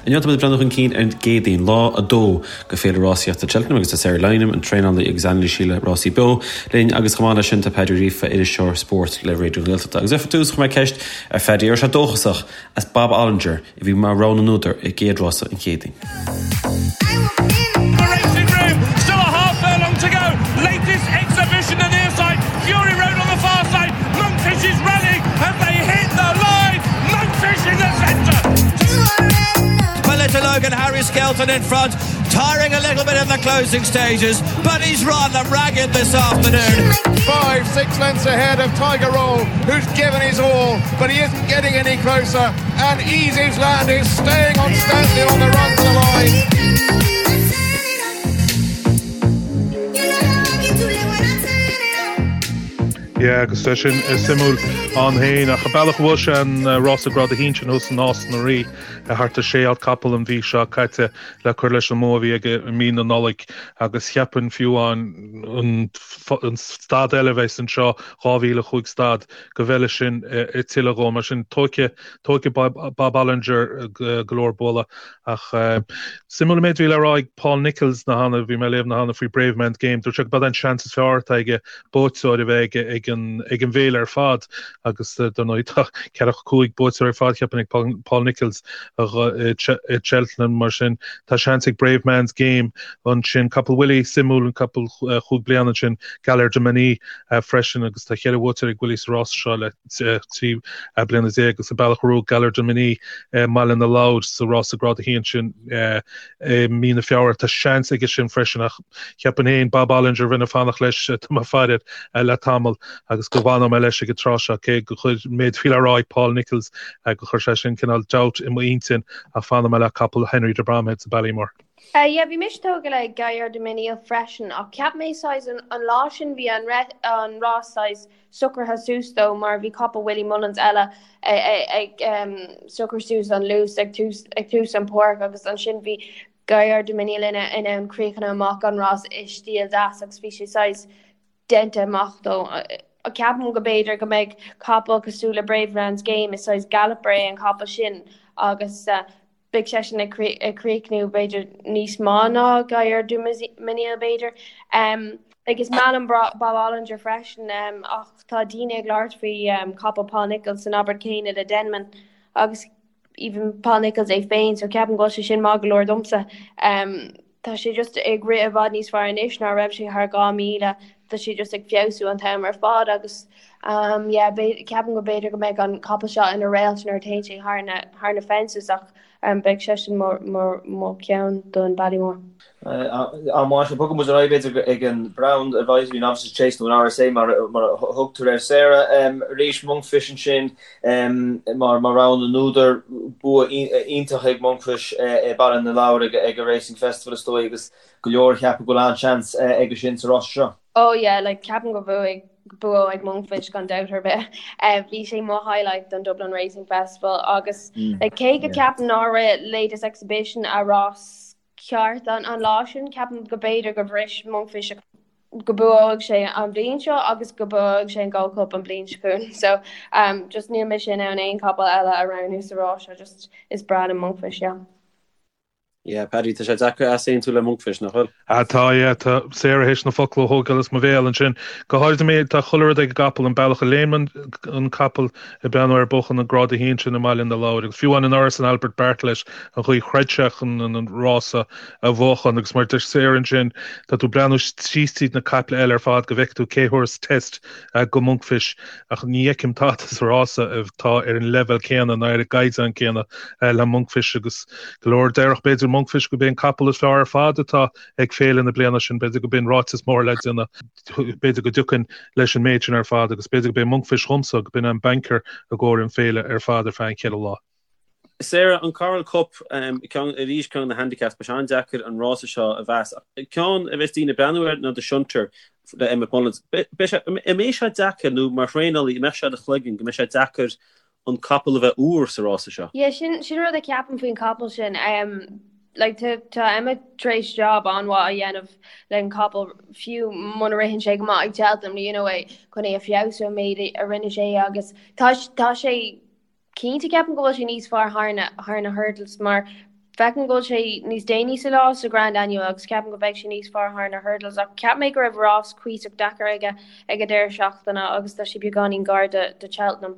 Inniu táimid ag breathnú chun cinn ar an gCéadaoin, lá 2 de Féile Rásaíochta Cheltenham agus tá Sarah Lynam, an traenálaí agus anailísí le Rásaí Beo, linn agus chomh maith leis sin tá Paddy Ó Gríofa, iriseoir spóirt le Raidió na Gaeltachta. Agus ar dtús chuir mé ceist ar Phaddy, an raibh sé dóchasach as Bob Olinger a bhí mar rogha na n-údar i gcéad rása an Chéadaoin. Politologue and Harry Skelton in front, tiring a little bit in the closing stages, but he's run them ragged this afternoon. 5, 6 lengths ahead of Tiger Roll, who's given his all, but he isn't getting any closer. And Easy's Land is staying on Stanley on the run to the line. Yeah, agus tá sin suimiúil ann féin ach an bealach a bhuaigh sé an rása grád a haon sin thuas i Nás na Rí thart ar sé alt capall an mhí seo caite le cur leis an mbua a bhí aige i mí na Nollag agus cheapfainn fiú amháin an stad eile a bheas anseo 2005 stad go bhfeilfidh sin tuilleadh dhó. Mar sin, tóigfidh, tóigfidh Bob Olinger go leor bualadh. Ach suimiúil an méid a bhí le rá ag Paul Nicholls nathanna, bhí mé ag léamh nathanna faoi Bravemansgame. Dúirt sé go b'é an seans is fearr atá aige buaiteoir a bheith aige ag an, ag an bhféile ar fad agus dar ndóigh tá ceathracha 5 buaiteoir ar fad cheapfainn ag Paul Nicholls i Cheltenham mar sin tá seans ag Bravemansgame ansin. Capall Willie suimiúil an capall chúig bliana ansin Gaillard Du Mesnil freisin agus tá cheithre bhuaiteoir ag Willie sa rása seo le 13 bliana agus an bealach a bhuaigh Gaillard Du Mesnil i mBaile na Lobhar sa rása Grád 1 sin i mí na Feabhra. Tá seans aige sin freisin ach cheapfainn féin Bob Olinger bheinn ag fanacht leis tá mé ag faire air le tamall agus go bhfanfaidh mé leis ag an tráth seo cé go chuir an méid a bhí le rá ag Paul Nicholls go chuir sé sin cineál doubt i m'intinn ach fanfaidh mé le capall Henry de Bromhead sa Ballymore. Yeah, bhí mise tógtha le Gaillard Du Mesnil freisin ach cheap mé saghas an lá sin bhí an an rás saghas socraithe suas dó mar bhí capall Willie Mullins eile ag socrú suas an luas ag tús ag tús an páirc agus ansin bhí Gaillard Du Mesnil in in ann críochnú amach an rás i stíl deas agus bhí sé saghas déanta amach dó. Ceapaim go b'fhéidir go mbeidh capall cosúil le Bravemansgame is saghas galloper é an capall sin agus beidh seisean ag críochnú b'fhéidir níos mó ná Gaillard Du Mesnil b'fhéidir. Agus is maith liom Bob Olinger freisin ach tá daoine ag labhairt faoi capall Paul Nicholls san abairt céanna le Denman agus even Paul Nicholls é féin so ceapaim go bhfuil sé sin maith go leor domsa. Tá sé just ag rith i bhfad níos fearr anois ná raibh sé thar 2000. Tá sé just ag feabhsú an t-am ar fad agus um yeah ceapaim go b'fhéidir go mbeidh an capall seo ina réalt nuair a théann sé thar na thar na fences ach um beidh seisean mo mo mo cheann don Ballymore. Am mhaith sin. Bogfaidh muid ar aghaidh b'fhéidir ag an Brown Advisory Novices Chase nó an RSA mar a thugtar air. Sarah, arís Monkfish ansin mar rogha na n-údar. Bua iontach ag Monkfish i Baile na Lobhar ag an Racing Festival is dóigh agus go leor ag ceapadh go bhfuil an-seans aige sin sa rás seo. Oh yeah, like ceapaim go bhuaigh buafaidh Monkfish gan dabht ar bith. Bhí sé mo highlight don Dublin Racing Festival agus like cé go ceapaim nár rith Latest Exhibition a rás ceart an an lá sin, ceapaim go b'fhéidir go bhris Monkfish go buafaidh sé an bhliain seo agus go buafaidh sé an Gold Cup an bhliain seo chugainn. So um, just níl mise in ann aon capall eile a roghnú sa rás seo, just is breá liom Monkfish, yeah. Yeah, Paddy, tá sé deacair easaontú le Monkfish, nach bhfuil? Ah tá, yeah, tá Sarah théis na focla a thógáil as mo bhéal ansin. Go háirid an méid, tá chuile rud ag an gcapall, an bealach a léim an capall ag breathnú ar buachan an grád a haon sin i mBaile na Lobhar agus fiú amháin anuraidh san Albert Bartlett an chaoi throid sé chun an rása a bhuachan agus mar a deir Sarah ansin tá tú ag breathnú síos tríd na caiple eile ar fad go bhfeicfidh tú cé thabharfas test go Monkfish ach ní fheicim tada sa rása atá ar an leibhéal céanna ná ar an gcaighdeán céanna le Monkfish agus go leor déarfadh b'fhéidir Monkfish gurb é an capall is fearr ar fad atá ag féile na bliana sin, b'fhéidir go b'in ráiteas mór le déanamh, b'fhéidir go dtiocfainn leis an méid sin ar fad agus b'fhéidir go b'é Monkfish dhomsa, go b'in an banker i gcomhair an féile ar fad ar feadh an cheithre lá. Sarah, an Coral Cup, ceann, arís ceann de na handicaps, beidh sé an-deacair an rása seo a mheas. Ceann a bheas daoine ag breathnú air ná The Shunter le Emmet Mullins. Beidh sé, an mbeidh sé deacair nó mar thraenálaí, an mbeidh sé i do chloigeann go mbeidh sé deacair an capall a bheith úr sa rása seo? Yeah, sin, sin rud a ceapaim faoin capall sin. Um, like, tá, tá Emmet tar éis job an-mhaith a dhéanamh le an capall fiú muna ritheann sé go maith ag Cheltenham, you know, é, chun é a feabhsú an méid a rinne sé agus tá, tá sé Cinnte, ceapaim go bhfuil sé níos fearr thar na thar na hurdles mar. Feicim go bhfuil sé níos déanaí sa lá sa Grand Annual agus ceapaim go mbeidh sé níos fearr thar na hurdles ach cheap mé go raibh rás cuíosach deacair aige ag an deireadh seachtaine agus tá sé beagáinín gar do do Cheltenham.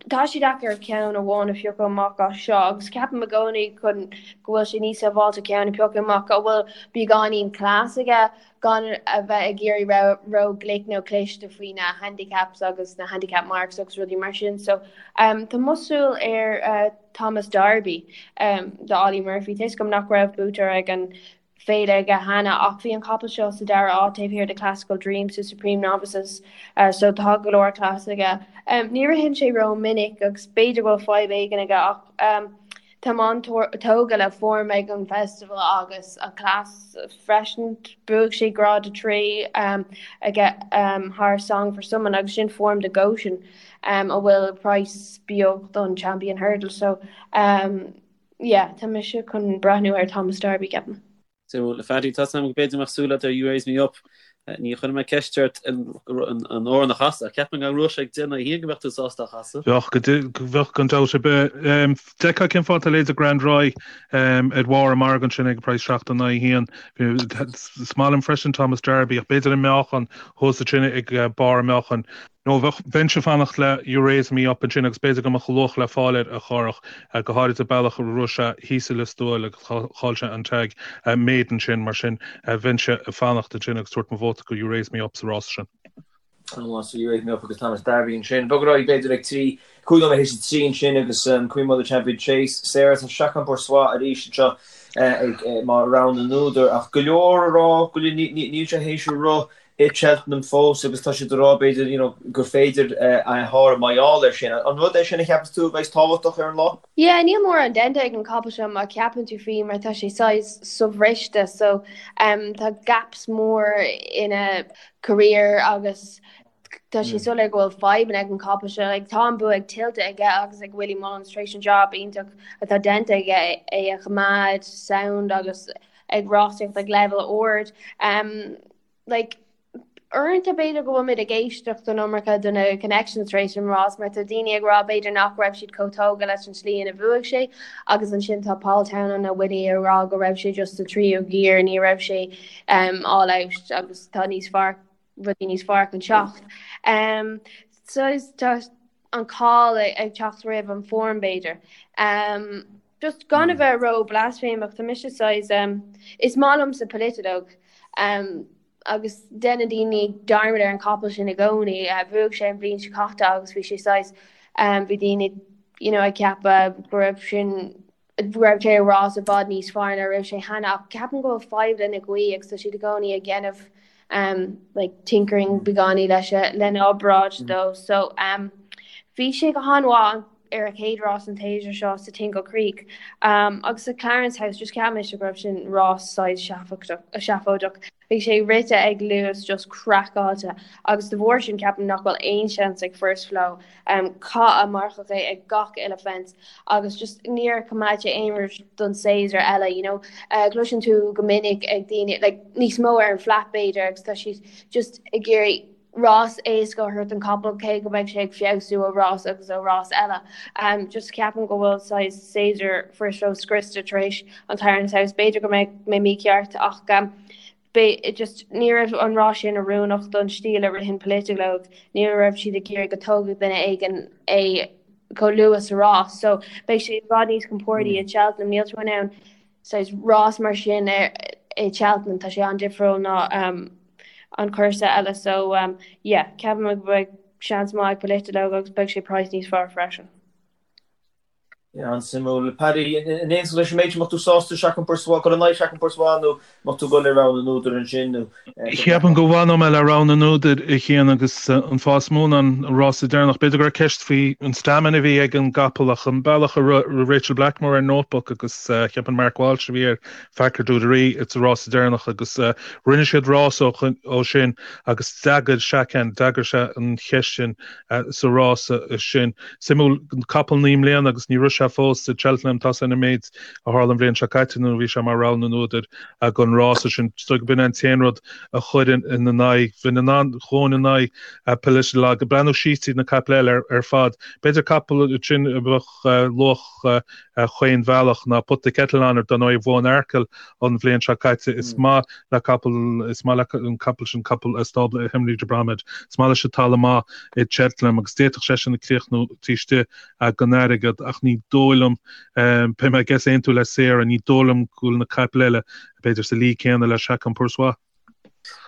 Tá sé deacair ceann amháin a phiocadh amach as seo agus ceapaim i gcónaí chun go bhfuil sé níos sábháilte ceann a phiocadh amach a bhfuil beagáinín cleas aige gan a bheith ag iarraidh bheith ró-ghlic nó cliste faoi na handicaps agus na handicap marks agus rudaí mar sin. So tá mo shúil ar Thomas Darby do Ollie Murphy. Tá a fhios agam nach raibh buaiteoir ag an bhféile aige cheana ach bhí an capall seo sa dara áit taobh thiar de Classical Dream sa Supreme Novices so tá go leor cleas aige. Ní ritheann sé ró-mhinic agus b'fhéidir go bhfuil fadhb éigin aige ach táim an-tógtha le form ag an Festival agus an cleas freisin. Bhuaigh sé grád 3 aige thar Song for Someone agus sin form do Goshen a bhfuil praghas beag don Champion Hurdle so yeah tá mise chun breathnú ar Thomas Darby ceapaim. So a Phaddy, tá a fhios agam go b'fhéidir go mbeadh súil agat ar You Raise Me Up. Ní chuirfidh mé ceist ort an amhrán a chasadh. Ceapaim go raibh sé ag 10 in aghaidh 1 go mbeadh tú sásta a chasadh. Bheadh, bheadh gan dabht ar bith. D'fheicfeá cén fáth tá leithéid Grand Roy ar bharr an mhargaidh ansin ag praghas 7 in aghaidh 1. Is maith liom freisin Thomas Darby ach b'fhéidir an meáchan thuas ansin ag barr an mheáchain. Nó bheinnse ag fanacht le You Raise Me Up ansin agus b'fhéidir go mbeadh luach le fáil air, a Chárthach, go háirid an bealach a raibh sé thíos i Lios Tuathail agus chaill sé an tag maiden sin. Mar sin, bheinnse ag fanacht ansin agus tabhairt mo vóta go You Raise Me Up sa rás sin. An-mhaith, so You Raise Me Up agus Thomas Darby ansin. Bog ar aghaidh b'fhéidir ag 3, 5 nóiméad théis a 3 ansin agus an Queen Mother Champion Chase. Sarah, tá Chacun Pour Soi arís anseo ag mar rogha na n-údar ach go leor a rá go níl sé théis a rith i Cheltenham fós agus tá siad ag rá b'fhéidir you know gur féidir é a shárú mar gheall air sin. An rud é sin a cheapas tú a bheas tábhachtach ar an lá? Yeah, níl mórán déanta ag an capall seo má cheapann tú faoi mar tá sé saghas sobhriste so um, tá gaps mór ina career agus tá sé soiléir go bhfuil fadhbanna ag an capall seo. Like, tá an bua ag tuillte aige agus ag Willie Mullins tar éis an job iontach atá déanta aige é a choimeád sound agus ag rásaíocht ag leibhéal ard. Um, like, uaireanta b'fhéidir go bhfuil muid ag éisteacht an iomarca do na connections tar éis an rás mar tá daoine ag rá b'fhéidir nach raibh siad chomh tógtha leis an slí ina bhuaigh sé agus ansin tá Paul Townend nó Willie ag rá go raibh sé just sa tríú giar ní raibh sé um, all out agus tá níos fearr rudaí níos fearr chun teacht. Um, so tá an cáil ag teacht roimh an form b'fhéidir. Um, Just gan a bheith ró blasféimeach, tá mise saghas, is maith liomsa Politologue agus déanann daoine dearmad ar an capall sin i gcónaí. Bhuaigh sé an bhliain seo caite agus bhí sé saghas, bhí daoine you know ag ceapadh go raibh sin, go raibh sé ag rás i bhfad níos fearr ná raibh sé cheana ach ceapaim go bhfuil fadhb lena ghaoth agus tá siad i gcónaí ag déanamh um like tinkering beagáinín leis lena obráid dó so um bhí sé go han-mhaith ar a chéad rás an tséasúr seo sa Tingle Creek um agus sa Clarence House just cheap mise go raibh sin rás saghas seafóideach bhí sé rite ag luas just craiceáilte agus de bharr sin ceapaim nach bhfuil aon seans ag First Flow um chaith a marcach é ag gach uile fence agus just níor choimeád sé aon rud don séasúr eile you know uh, cloiseann tú go minic ag daoine like, níos mó ar an flat b'fhéidir agus tá siad just ag iarraidh rás éasca a thabhairt don capall cé go mbeidh sé ag feabhsú ó rás agus ó rás eile. Um, just ceapaim go bhfuil saghas séasúr First Flow scriosta tar éis an Clarence House b'fhéidir go mbeidh mé mícheart ach um, B'é just, ní raibh an rás sin oiriúnach don stíl a ritheann Politologue, ní raibh siad ag iarraidh go dtógfadh duine éigin é chomh luath sa rás. So beidh sé i bhfad níos compordaí i Cheltenham. Níl tú in ann saghas rás mar sin i Cheltenham, tá sé an-difriúil ná an cúrsa eile. So yeah, ceapaim go mbeidh seans maith ag Politologue agus beidh sé praghas níos fearr freisin. An-suimiúil. Paddy, an aontaíonn tú leis an méid sin? Mbeadh tú sásta Chacun Pour Soi, dul in aghaidh Chacun Pour Soi nó mbeadh tú ag dul le rogha na n-údar ansin nó? Cheapfainn go bhfanóidh mé le rogha na n-údar, a Chian, agus an fáth is mó ná an rása deireanach. B'fhéidir go raibh ceist faoi an stamina a bhí ag an gcapall ach an bealach a rith Rachel Blackmore ar Notebook agus cheapfainn Mark Walsh a bhí ar Fakir D'Oudairies sa rása deireanach agus rinne siad rás ó sin agus d'fhreagair Chacun, d'fhreagair sé an cheist sin sa rása sin. Suimiúil, capall 9 mbliana agus ní raibh sé. sé fós i Cheltenham, tá a fhios againn an méid a tharla an bhliain seo caite nuair a bhí sé mar rogha na n-údar don rása sin. Is dóigh go b'in an t-aon rud a chuirfinn ina n-aghaidh. Bheinn in ann ghabhfainn in aghaidh Politologue. Ag breathnú síos tríd na caiple eile ar fad, b'fhéidir capall ansin a bheadh luach chaon bhealach ná Put the Kettle On ar ndóigh a bhuaigh an Arkle an bhliain seo caite. Is maith le capall, is maith le an capall sin, capall stábla Henry de Bromhead. Is maith leis an talamh maith i Cheltenham agus d'fhéadfadh seisean críochnú taobh istigh den airgead ach ní dóigh liom, beidh mé ag easaontú le Sarah, ní dóigh liom go bhfuil na caiple eile b'fhéidir sa league céanna le Chacun Pour Soi.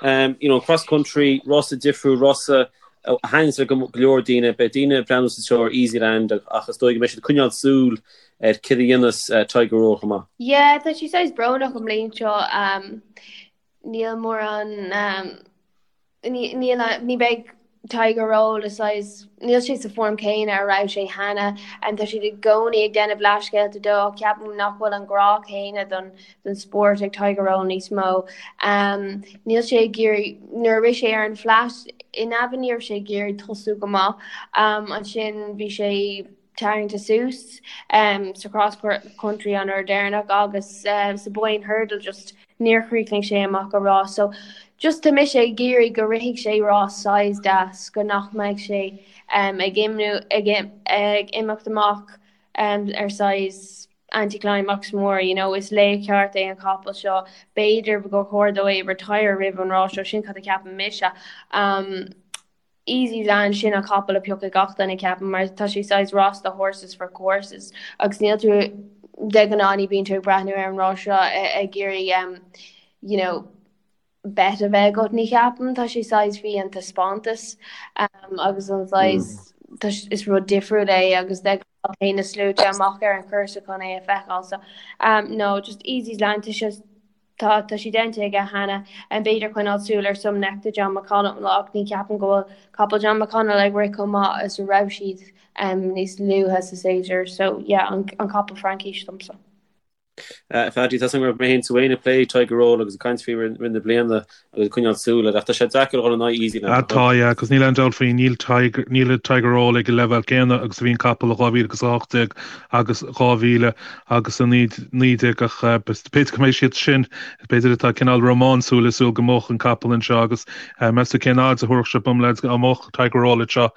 You know, cross country, rása difriúil, rása a thaitníonns le go leor daoine. Beidh daoine ag breathnú sa treo ar Easyland ach is dóigh go mbeidh siad ag coinneáil súil ar céard a dhéanfas Tiger Roll chomh maith. Yeah, tá sé saghas brónach an mbliain seo. Níl mórán Níl, ní bheidh Tiger Roll is saghas, níl sé sa form céanna a raibh sé cheana. Tá siad i gcónaí ag déanamh leathscéalta dó ach ceapaim nach bhfuil an grá céanna don don spórt ag Tiger Roll níos mó. Níl sé ag iarraidh, nuair a rith sé ar an flat in Navan ní raibh sé ag iarraidh tosú go maith. Ansin bhí sé tarraingthe suas sa cross country an uair deireanach agus sa Boyne Hurdle just níor chríochnaigh sé amach an rás so just tá mise ag iarraidh go rithfidh sé rás size deas go nach mbeidh sé ag imniú ag ag imeacht amach ar size anticlimax mór you know is laoch ceart é an capall seo b'fhéidir gur chóir dó é retire roimh an rás seo sin cad a ceapann mise um, Easyland sin an capall a piocfaidh gach duine ceapaim mar tá sé saghas rás do horses for courses agus níl tú de ghnáth ní bíonn tú ag breathnú ar an rás seo ag iarraidh um, you know, bet a bheith agat ní cheapaim tá sé saghas faoi an taispeántas um, agus an saghas mm. is rud difriúil é agus de ghnáth téann na sluaite amach ar an chúrsa chun é a feiceáil so um, no just Easyland tá sé Tá, tá sé déanta aige cheana. B'fhéidir coinneáil súil ar Some Nectar John McConnell ach ní cheapaim go bhfuil capall John McConnell ag rith chomh maith is a raibh siad níos luaithe sa séasúr. So yeah, an capall Fraincis domsa. Phaddy, tá a fhios agam go raibh mé féin is tú féin ag plé Tiger Roll agus ag caint faoi i rith na bliana agus ag coinneáil súil air ach tá sé deacair a dhul in aghaidh Easyland. Tá, yeah, agus níl aon dabht faoi, níl Tiger, níl Tiger Roll ag an leibhéal céanna agus a bhí an capall i 2018 agus 2000 agus 19 ach b'fhéidir go mbeidh siad sin, b'fhéidir atá cineál rómánsúil ag súil go mbuafadh an capall anseo agus meas tú cén odds a thabharfadh sibh dom lads dá mbuafadh Tiger Roll anseo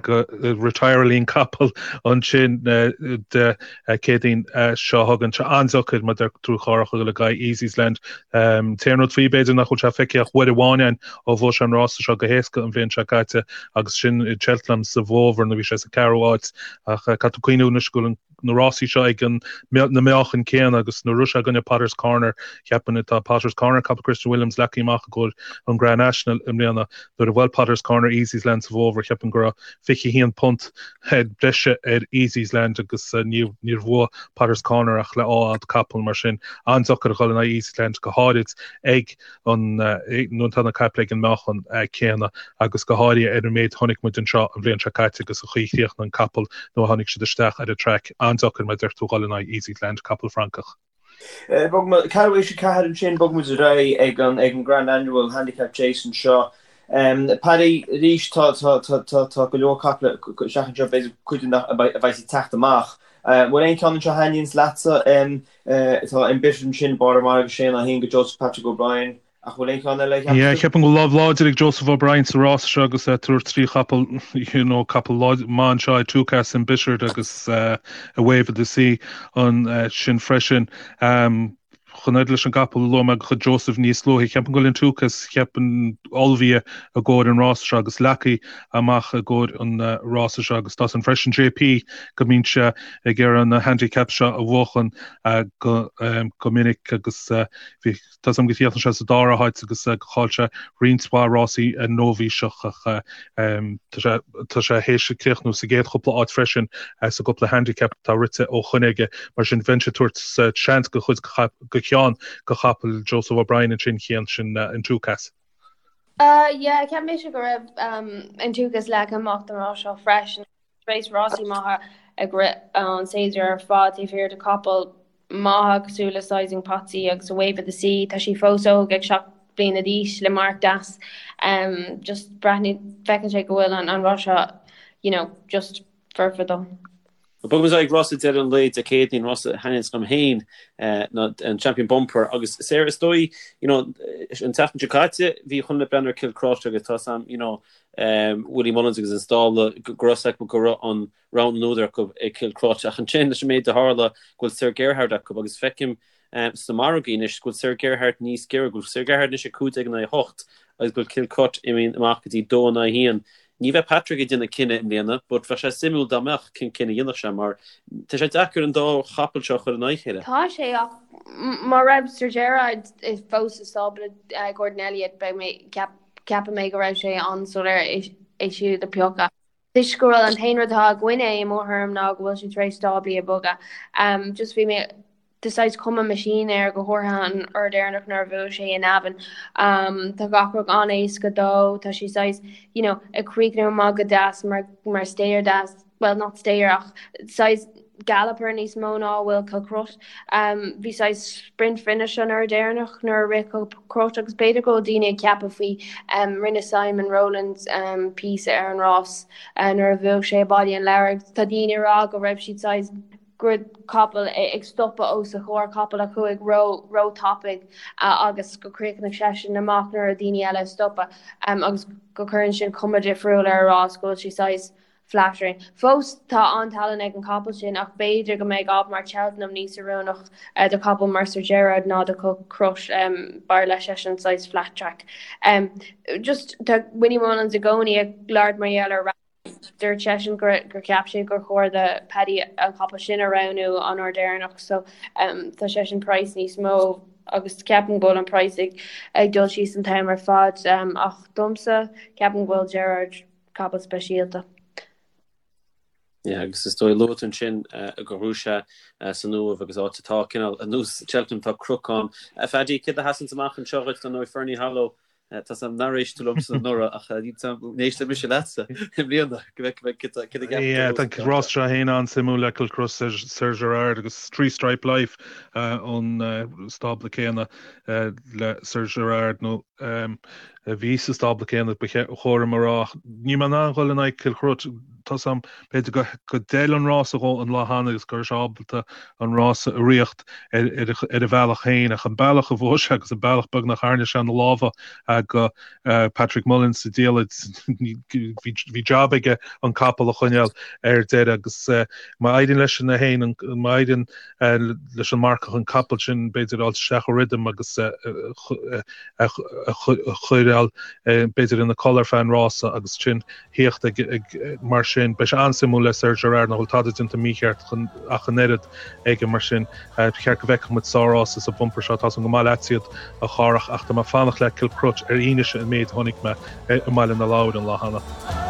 go retireálaí an capall ansin Dé Céadaoin seo chugainn. Sé an-deacair mar a deir tú a Chárthach a dhul in aghaidh Easy's Land. An t-aon rud faoi b'fhéidir nach bhfuil sé feicthe ach uair amháin againn ó bhuaigh sé an rása seo go héasca an bhliain seo caite agus sin i Cheltenham sa bhfómhar nuair a bhí sé sa ceathrú háit ach caithfidh tú cuimhniú anois go bhfuil an na rásaí seo ag an na meáchain céanna agus nuair a rith sé i gcoinne Potters Corner, cheapfainn tá Potters Corner, capall Christian Williams leagtha amach i gcomhair an Grand National i mbliana. Nuair a bhuail Potters Corner Easy's Land sa bhfómhar, cheapfainn go raibh £21 breise ar Easy's Land agus níor bhuaigh Potters Corner ach le dhá fhad capall mar sin. An-deacair a dhul in aghaidh Easy's Land go háirid ag an nuair atá na caiple ag an meáchan céanna agus go háirithe ar an méid a chonaic muid anseo an bhliain seo caite agus an chaoi a chríochnaigh an capall nuair a tháinig siad isteach ar an traic. An-deacair mar a deir tú dhul in aghaidh Easy's Land, capall Francach. Ceathrú théis 4 ansin, bogfaidh muid ar aghaidh ag an ag an Grand Annual Handicap Chase anseo. Paddy, arís tá tá tá tá tá go leor caiple isteach anseo, b'fhéidir cuid a bheidh ag teacht amach. Bhfuil aon cheann anseo a thaitníonns leatsa? Tá Embittered ansin, barr an mhargaidh 6 in aghaidh 1 do Joseph Patrick O'Brien, ach bhfuil aon cheann eile a cheapas Yeah, tú? ceapaim go bhfuil lámh láidir ag Joseph O'Brien sa rás seo agus é ag tabhairt 3 chapall, you know, capall maith anseo, Entoucas, Embittered agus A Wave of the Sea ansin freisin. Chun fhad leis an gcapall a luaigh mé de chuid Joseph níos luaithe, ceapaim go bhfuil Entoucas, cheapfainn, ullmhaithe i gcomhair an rása seo agus leagtha amach i gcomhair an rása seo agus tá san freisin JP go mbíonn sé ag iarraidh na handicaps seo a bhuachan go minic agus bhí tá a fhios agam go chríochnaigh sé sa dara háit agus go chaill sé roinnt mhaith rásaí nóibhíseach ach tá sé tá sé théis críochnú sa gcéad chúpla áit freisin sa gcúpla handicap atá rite ó shoin aige mar sin bheinnse ag tabhairt seans go chuid go cheann de chapaill Joseph O'Brien ansin Cian sin Entoucas. Yeah, cheap mise go raibh Entoucas leagtha amach don rás seo freisin. Tar éis rásaí maithe ag rith an séasúr ar fad taobh thiar de capaill maithe cosúil le Sizing Pottsie agus A Wave of the Sea. Tá sí fós óg ag 7 bliana d'aois le marc deas. Just breathnaigh, feiceann sé go bhfuil an rás seo, you know, just foirfe dó. Bogfaidh muid ag rása deireadh an lae Dé Céadaoin, rás a thaitníonns liom féin ná an Champion Bumper agus Sarah is dóigh you know an tseachtain seo caite bhí chuile dhuine ag breathnú ar Kilcruit agus tá sam you know Willie Mullins agus an stábla go raibh acu go raibh an rogha na n-údar acu ag Kilcruit ach ansin leis an méid a tharla go bhfuil Sir Gerhard acu agus feicim sna margaí anois go bhfuil Sir Gerhard níos giorra, go bhfuil Sir Gerhard anois ag 15 in aghaidh 8 agus go bhfuil Kilcruit imithe amach go dtí 2 in aghaidh 1. Ní bheidh Patrick ag déanamh cinneadh i mbliana but bheadh sé suimiúil dá mbeadh, cén cinneadh a dhéanfadh sé mar tá sé deacair an dá chapall seo a chur in aghaidh a chéile. Tá sé ach má raibh Sir Gerhard fós i stábla Gordon Elliott beidh mé, ceapaim mé go raibh sé an-soiléir é siúd a phiocadh. Toisc go bhfuil an t-aon rud atá i gcoinne é i mo thuairim ná go bhfuil sé tar éis stáblaí a bhogadh. Just bhí mé tá saghas cuma machine air go háirithe an uair deireanach nuair a bhuaigh sé in Navan. Tá gach rud an-éasca dó, tá sé saghas you know ag críochnú amach go deas mar mar stayer deas, well not stayer ach saghas galloper níos mó ná a bhfuil Kilcruit. Bhí saghas sprint finish an uair deireanach nuair a rith Kilcruit agus b'fhéidir go bhfuil daoine ag ceapadh faoi rinne Simon Rowlands píosa ar an rás nuair a bhuaigh sé i Baile an Lobhair agus tá daoine ag rá go raibh siad saghas go raibh capall ag stopadh os a chomhair, capall a chuaigh ró ró-tapaidh agus go chríochnaigh seisean amach nuair a raibh daoine eile ag stopadh agus go cuireann sin cuma difriúil ar an rás go bhfuil sé saghas flattering. Fós tá an-tallann ag an capall sin ach b'fhéidir go mbeidh áit mar Cheltenham níos oiriúnach do chapall mar Sir Gerhard ná do Kilcruit b'fhearr leis seisean saghas flat track. Just tá Willie Mullins i gcónaí ag labhairt mar gheall ar Dúirt seisean gur cheap sé gur chóir do Paddy an capall sin a roghnú an uair deireanach so tá seisean praghas níos mó agus ceapaim go bhfuil an praghas ag dul síos an t-am ar fad ach domsa ceapaim go bhfuil Gerhard capall speisialta. Yeah, agus is dóigh luaigh tú ansin gur bhuaigh sé san Uaimh agus áit atá cineál ar nós Cheltenham tá cnoc ann. A Phaddy, céard a sheasanns amach anseo dhuit, dar ndóigh Ferny Hollow, tá 's a'm nár éist tú liomsa anuraidh ach an éistfidh mise leatsa i mbliana go bhfeicfidh mé céard a cheapann tú. Yeah, tá an rás seo féin an-suimiúil le Kilcruit Sir Gerhard agus Three Stripe Life ón stábla céanna le Sir Gerhard nó a bhí sa stábla céanna, ba chóir dom a rá, ach níl mé in ann dhul in aghaidh Kilcruit. Tá 's a'm, b'fhéidir go go d'fheil an rása dhó an lá cheana agus go raibh sé ábalta an rása a ritheacht ar ar a bhealach féin, ach an bealach a bhuaigh sé agus an bealach beagnach a tharraing sé na lámha go Patrick Mullins sa diallait, bhí bhí jab aige an capall a choinneáil ar deireadh agus má éiríonn leis an féin, má éiríonn leis an marcach an capall sin b'fhéidir a fháilt isteach i rhythm agus a choinneáil b'fhéidir ina codladh ar feadh an rása agus sin thíocht ag mar sin. Beidh sé an-suimiúil le Sir Gerhard nach bhfuil tada déanta mícheart ach an oiread aige mar sin. Ba cheart go bhfeicfeadh muid sár-rása sa bhumpar seo. Tá 's a'm go maith leatsa iad a Chárthach ach tá mé ag fanacht le Kilcruit ar fhianaise an méid a chonaic mé i mBaile na Lobhar an lá cheana.